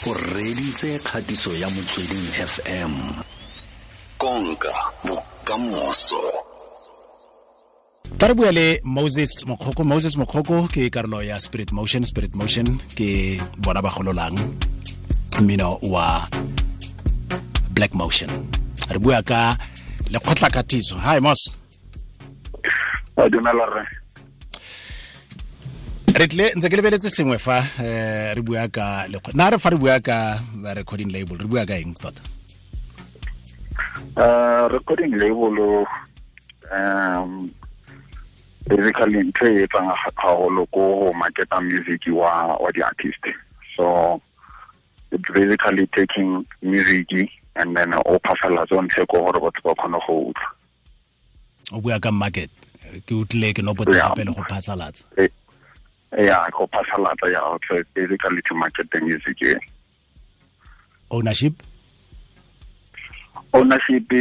O reditse kgatiso ya Motsweding FM. Konka bokamoso. Tla re bua le Moses Mokgoko. Moses Mokgoko ke karolo ya Spirit Motion. Spirit Motion ke bona ba gololang mmino wa Black Motion. Re bua ka lekgotla katiso. Hi Mos. A dumela rre. Re tle ntse ke lebeletse sengwe fa re bua ka na re fa re bua ka recording label, re bua ka eng tota? Recording label basically ntho e etsang haholo ko go marketa music wa di-artist. So it's basically taking music and then o phasalatsa o ntshe ko gore batho ba kgone go utlwa. O bua ka market, ke utlwile ke nopotse gape le go phasalatsa. Yeah, go phasalatsa, yeah. So it's basically to market the music. Yeah. Ownership? Ownership,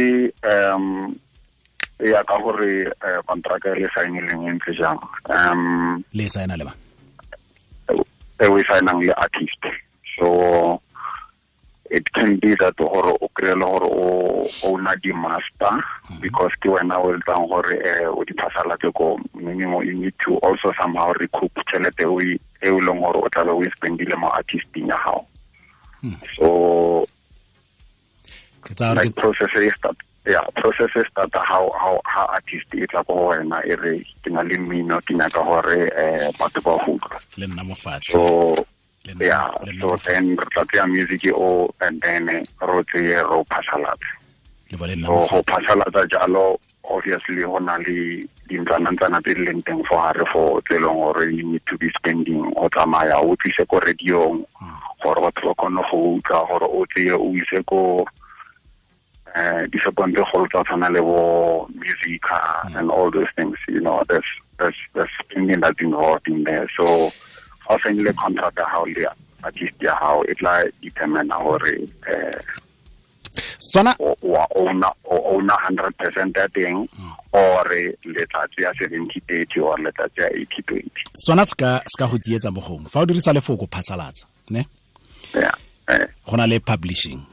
ya ka gore contract e le saenileng e ntse jang. Le saena le ba? E we saenang le artist. So it can be that gore o kry-e le gore o owner di master, because ke wena o etsang gore o di phasalatse ko, meaning you need to also somehow recoup tšhelete e o leng gore o tlabe o e spendile mo artisting ya gago. So like process e start, yeah, process e start how artist e tla ko wena e re ke na le mmino, ke nyaka gore batho ba go utlwa le nna mo fatshe. So yeah, so then re tla tseya music o and then ro tseye ro phasalatse. So go phasalatsa jalo, obviously go na le dintlwanantsana tse di leng teng fo gare fo tse e leng gore you need to be spending, o tsamaya o tlise ko radiong gore batho ba kgone go utlwa, gore o tseye o ise ko dishopong tse kgolo tsa tshwana le bo Musica and all those things, you know, there's spending that's involved in there. So ha o saenile contract ya hao le artist ya hao, e tla determine gore Sona wa owner 100% ya teng, or le tla tseya 70-30 or le tla tseya 80-20. Sona ska go tsietsa mo gongwe fa o dirisa lefoko phasalatsa, ne? Yeah. Go na le publishing.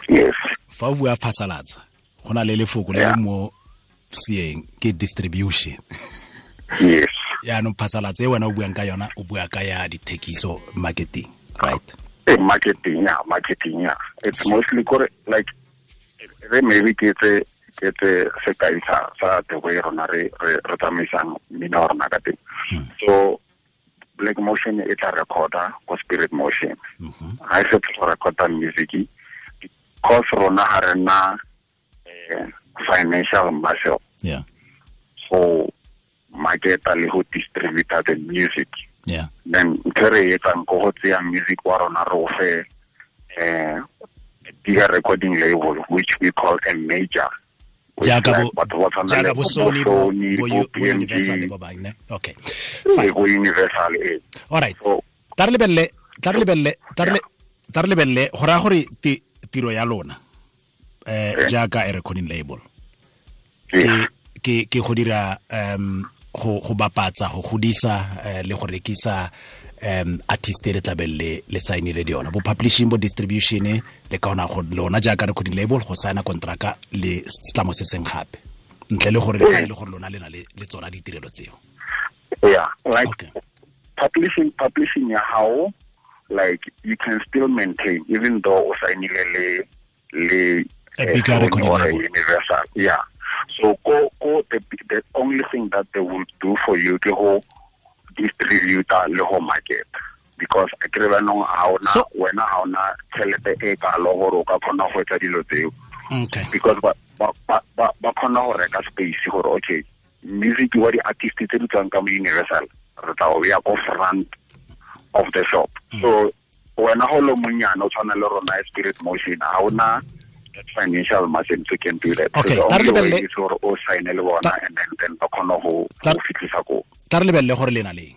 Yes. Fa o bua phasalatsa, go na le lefoko le le mo seeng ke distribution. Yes. Yaanong phasalatsa e wena o buang ka yona, o bua ka ya dithekiso, marketing, right? Marketing, yeah, marketing, yeah. It's mostly like re maybe ke tse sekai sa the way rona re tsamaisang mmino wa rona ka teng. So Black Motion e tla recorda ko Spirit Motion. Ha e fetsa go recorda music, because rona ha re na financial muscle. Yeah. So marketa le go distribute the music. Yeah. Then ntho re etsang ko go tseya music wa rona re o fe bigger recording label, which we call a major. Jaaka bo Sony, bo Universal le ba bang, ne? Okay. Fine. Bo Universal, eh. All right. Tla re lebelele go raya gore tiro ya lona jaaka a recording label ke go dira go bapatsa, go godisa le go rekisa artist e re tlabeng le saenile le yona, bo publishing, bo distribution, le ka ona go lona jaaka recording label go saena kontraka le setlamo se seng gape, ntle le gore le gore lona le na le tsona ditirelo tseo. Yeah, like okay. Publishing ya hao, like you can still maintain even though o saenile le a bigger recording label, Universal. Yeah. So go the only thing that they will do for you ke go distribute le go market, because a kere ba nong ha ona wena ha ona tšhelete e kalo gore o ka kgona go etsa dilo tseo. Okay. Because ba kgona go reka space gore okay, music wa di-artist tse di tswang ka mo Universal re tla o ya ko front of the shop. So wena go le monyane o tshwana le rona Spirit Motion, ha ona financial muscle to can do that. Okay, so the only way is gore o sign le bona and then ba kgona go fitlhisa ko. Tla re lebelele gore le na leng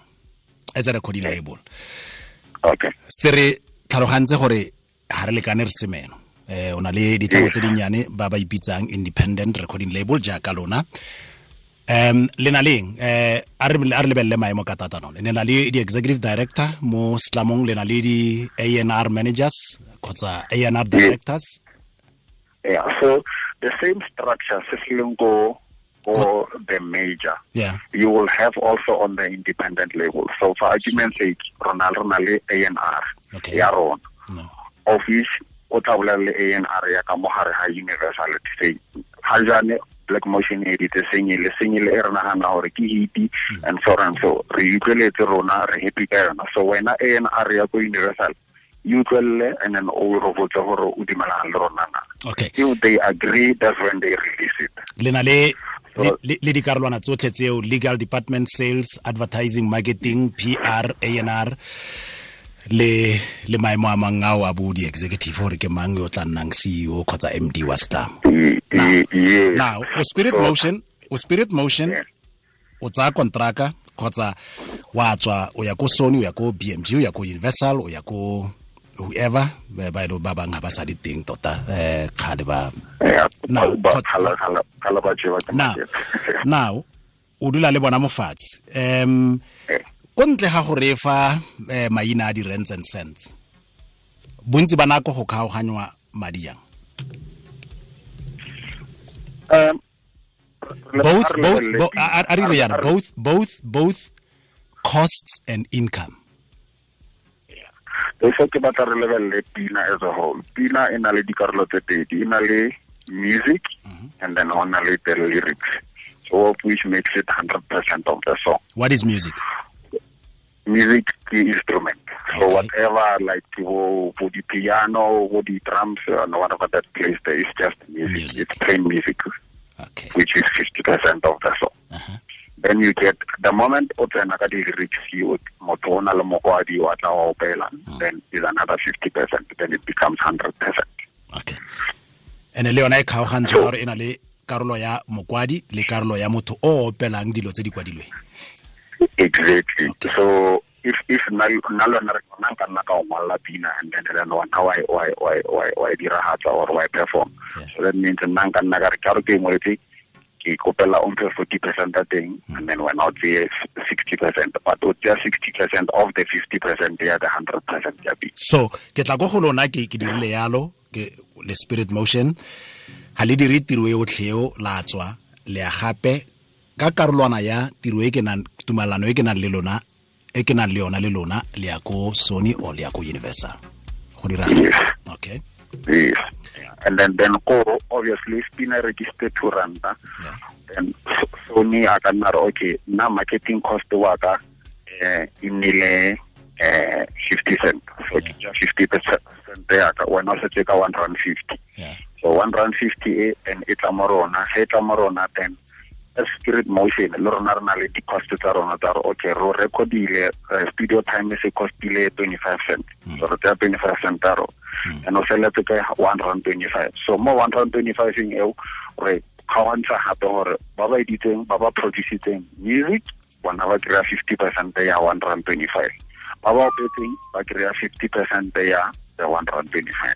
as a recording label. Okay. Se re tlhalogantse gore ha re lekane re semeno. O na le ditlamo tse dinnyane ba ba ipitsang independent recording label jaaka lona. Le na leng a re lebelele maemo ka tatano. Le na le di executive director mo Slamong, le na le di A&R managers kgotsa A&R directors. Yeah, so the same structure se se leng ko the major. Yeah. You will have also on the independent label. So for argument's sake, rona le A&R. Okay. Ya rona. No. Of which o tla bolela le A&R ya ka mo gare ga Universal to say ha jane Black Motion edit sengele e re nagana gore ke hit and so on. So re utlweletse rona, re happy ka yona. So wena A&R ya ko Universal you utlwelele and then o re botse gore o dumelana le rona na. Okay. If they agree, that's when they release it. Le na le le dikarolwana tsotlhe tseo, legal department, sales, advertising, marketing, PR, A&R, le maemo a mang ao a bo di-executive gore ke mang yo tla nnang CEO kgotsa MD wa Slam. Now, o Spirit Motion, o tsaya kontraka kgotsa wa tswa o ya ko Sony, o ya ko BMG, o ya ko Universal, o ya ko whoever, ba e ba bang ha ba sa di teng tota kgale ba. Now o dula le bona mofatshe. Ko ntle ga go refa maina a di rents and cents, bontsi ba nako go kgaoganywa madi jang? Both costs and income. So ke batla re lebelele pina as a whole. Pina e na le dikarolo tse pedi, e na le music and then on le the lyrics. So which makes it 100% of the song. What is music? Music is instrument. Okay. So whatever, like for the piano, for the drums, and whatever that plays there is just music. It's plain music. Okay. Which is 50% of the song. Uh-huh. Then you get the moment o tsena ka di-lyrics, motho o na le mokwadi wa tla wa opela, then is another 50%, then it becomes 100%. Okay. And le yona e kgaogantswe gore e na le karolo ya mokwadi le karolo ya motho o opelang dilo tse di kwadilweng. Exactly. Okay. So if nna le wena re nna ka nna ka o ngwalla pina and then wena wa e diragatsa or wa e perform. Yeah. So that means nna nka nna ka re ka re ke ngwetse ke kopela o mphe 40% ya teng and then wena o tseye 60%, but o tsaya 60% of the 50% ya the 100% ya pina. So ke tla go go lona ke dirile yalo ke le Spirit Motion ha le dire tiro e otlhe eo la tswa le ya gape ka karolwana ya tiro e ke nang tumalano e ke nang le lona e ke nang le yona le lona le ya ko Sony or le ya ko Universal go dira. Yes. Okay. Yes. And then go obviously spina register 2 ranta. Yeah. Then Sony a ka nna re okay nna marketing cost wa ka e nnile 50 cent. So ke 50% ya ka wena o setse ka 150. Yeah. So 150 and e tla mo rona, ge e tla mo rona then Spirit Motion le rona re na le di-cost tsa rona tsa gore okay ro recordile studio time se costile 25 cent. So re tsaya 25 cent a rona and o feletse ka 125. So mo 125 eo re kgaogantsha gape gore ba ba editseng ba ba producitseng music bona ba kry-a 50% ya 125, ba ba opetseng ba kry-a 50% ya the 125.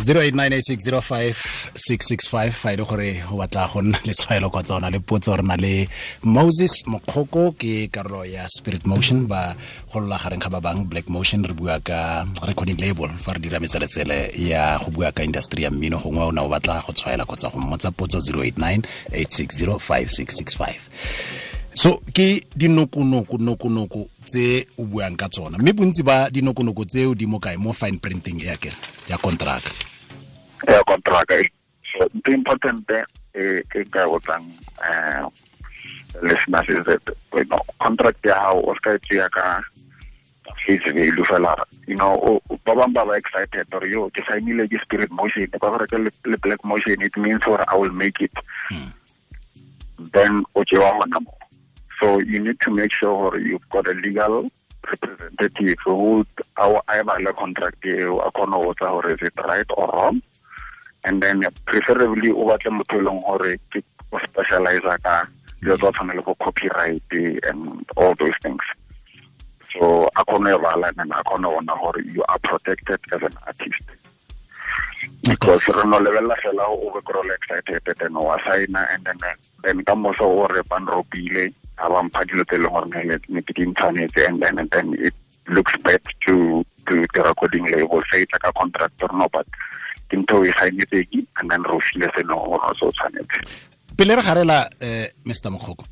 0898605665 fa ile gore o batla go nna le tshwaelo kgotsa o na le potso, re na le Moses Mokgoko ke karolo ya Spirit Motion ba golola gareng ga ba bang Black Motion. Re bua ka recording label fa re dira metseletsele ya go bua ka industry ya mmino, gongwe o ne o batla go tshwaela kgotsa go mmotsa potso 0898605665. So ke dinokonoko tse o buang ka tsona, mme bontsi ba dinokonoko tseo di mo kae? Mo fine printing ya kere ya contract. Ya contract. So the important e ke ka botsang listeners is that you know contract ya hao o ska tšea ka face value fela. You know ba bang ba ba excited or yo ke signile ke Spirit Motion ba gore ke le Black Motion, it means for I will make it. Then o tšewa hona mo. So you need to make sure you've got a legal representative who our contract or is it right or wrong, and then preferably o batle motho e leng gore ke o specialize ka dilo tsa tshwana le go copyright and all those things. So a kgone go bala and a kgone go bona gore you are protected as an artist. Because re no lebelela fela o be kry excited then wa signa and then ka moso o re ba nropile a ba mpha dilo tse e leng gore ne ke di ntshwanetse, and then it looks bad to the recording label, say it's like a contract or no, but ke ntho e signetse and then ro file seno gore o se o tshwanetse. Pele re garela Mr. Mokgoko,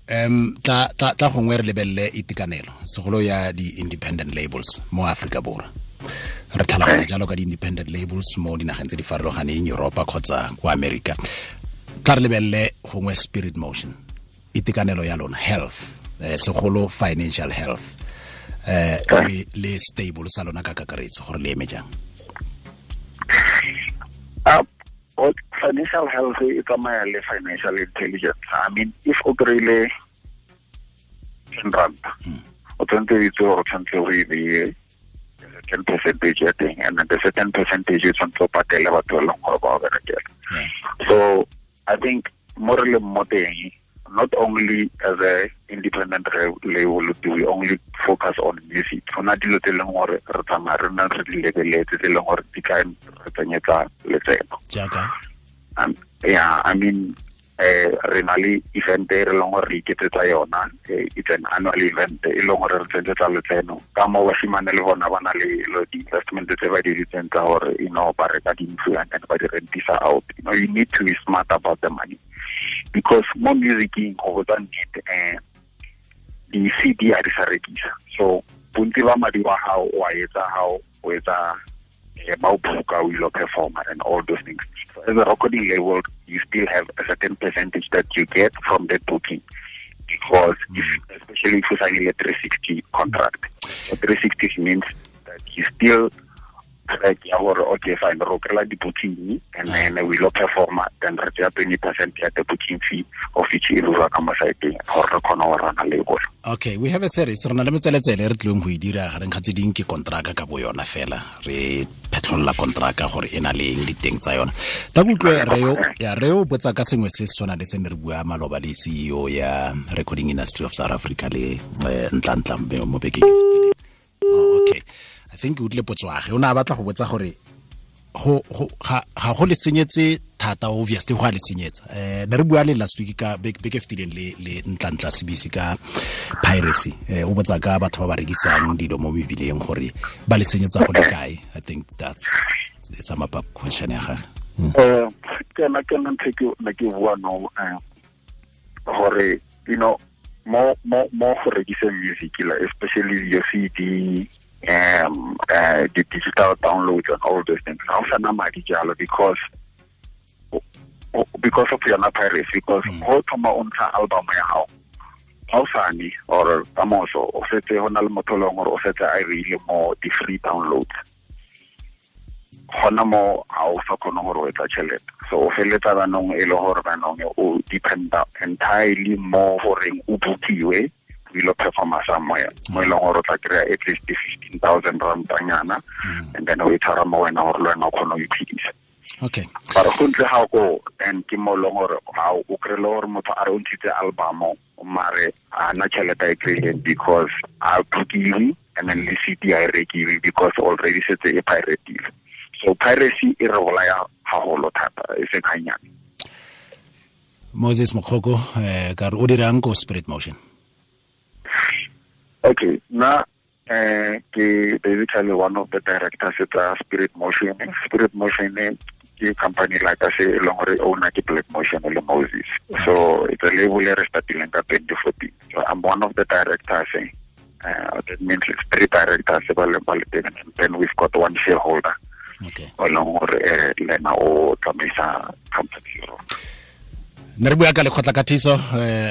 tla gongwe re lebelele itekanelo segolo ya di-independent labels mo Afrika Borwa. Re tlhaloganya jalo ka di-independent labels mo dinageng tse di farologaneng, Europa kgotsa kwa America. Tla re lebelele gongwe Spirit Motion, itekanelo ya lona, health, segolo financial health, le stable sa lona ka kakaretso gore le eme jang. Financial health e tsamaya le financial intelligence. I mean, if o kry-ile 10 rand, o tshwanetse o itse gore o tshwanetse o e beye 10% ya teng, and then the certain percentage o tshwanetse o patele batho ba leng gore ba o berekela. So I think mo re leng mo teng, not only as a independent label do we only focus on music. Go na dilo tse leng gore re tsamaya re nna re di lebeletse tse leng gore di ka re tsenyetsa letseno. Jaaka? Yeah, I mean, re na le event e re leng gore re iketsetsa yona, it's an annual event e leng gore re tsenyetsa letseno. Ka mo bashimane le bona ba na le di-investment tse ba di ditseng tsa gore, you know, ba reka dintlo and then ba di rentisa out. You know, you need to be smart about the money. Because mo musicing go botsa nnete, di-CD a di sa rekisa. So bontsi ba madi wa gago o a etsa gao o etsa ba o booka o ilo performa and all those things. So as a recording label, you still have a certain percentage that you get from that booking, because if, especially if you sign a 360 contract. So 360 means that you still track ya gore okay fine ro kry-a di-booking and then we lo performa, then re tseya 20% ya the booking fee of each e lora ka mo site-eng gore re kgone go rana label. Okay, we have a series re na le metseletsele re tlileng go e dira gareng ga tse ding ke kontraka ka bo yona fela, re phetlholla kontraka gore e na le eng diteng tsa yona. Ta kutlwe reo botsa ka sengwe se se tshwana le se ne re bua maloba le CEO ya Recording Industry of South Africa le Ntlantla mo bekeng e fetileng. Oh, okay. I think o tle potswage o na batla go botsa gore go ga go le senyetse thata, obviously go a le senyetsa. Ne re bua le last week ka beke fetileng le Ntlantla CBC ka piracy. O botsa ka batho ba ba rekisang dilo mo mebileng gore ba le senyetsa go le kae. I think that's it's a map up question ya gagwe. Ke na ntho ke ne ke bua no gore you know mo go rekiseng music la, especially your CD, the digital downloads and all those things. Ga o sana madi jalo because of yona piracy, because go thoma o ntsha album ya gago ga o sane or ka moso o setse go na le motho leng gore o setse a reile mo di-free downloads, gona mo ga o sa kgone gore o etsa tšhelete. So o feleletsa banong e le gore banong o dependa entirely mo goreng o bookiwe o ilo performa somewhere mo e leng gore o tla kry-a at least 15,000 rand-anyana, and then o e tshwara mo wena gore le wena o kgone go iphedisa. Okay. But go ntle ga ko then ke mo leng gore ga o kry-le gore motho a re o ntshitse album mare a na tšhelete a e kry-ileng because a bookiwe and then le CD a e rekiwe because already setse e piratile. So piracy e re bolaya haholo thata e seng gannyane. Moses Mokgoko, ka re o dirang ko Spirit Motion? Okay, na ke basically one of the directors at Spirit Motion. Spirit Motion ke company like I say e leng gore owner ke Black Motion le Moses. So it's a label e re startileng ka 2014. So I'm one of the directors. That means it's three directors ba le teng, and then we've got one shareholder. Okay. O leng gore le ena o tsamaisa company. Ne re bua ka lekgotla katiso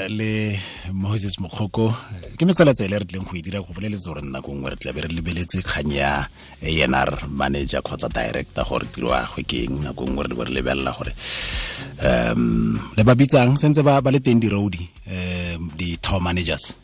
le Moses Mokgoko. Ke metseletsele re tlileng go e dira go boleletse gore nako nngwe re tla be re lebeletse kgang ya A&R manager kgotsa director gore tiro ya gagwe ke eng. Nako nngwe re be re lebelela gore le ba bitsang sentse ba le teng di-road di-tour managers.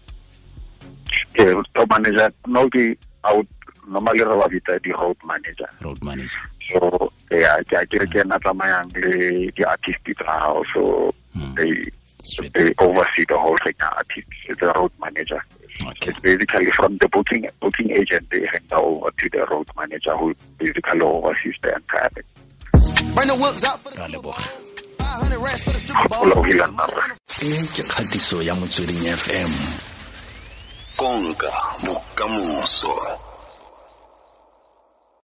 Okay, tour manager no ke out normally re ba bitsa di-road manager. Road manager. So yeah, ke re ke ena tsamayang le di-artist tsa gago, so they oversee the whole thing. Artist is the road manager. Okay. It's basically from the booking agent, they hand over to the road manager who basically oversees the entire thing. Bring the whips out for the Ra leboga. 500 racks for the stripper O lebogile nna rre. E ke kgatiso ya Motsweding FM. Konka bokamoso.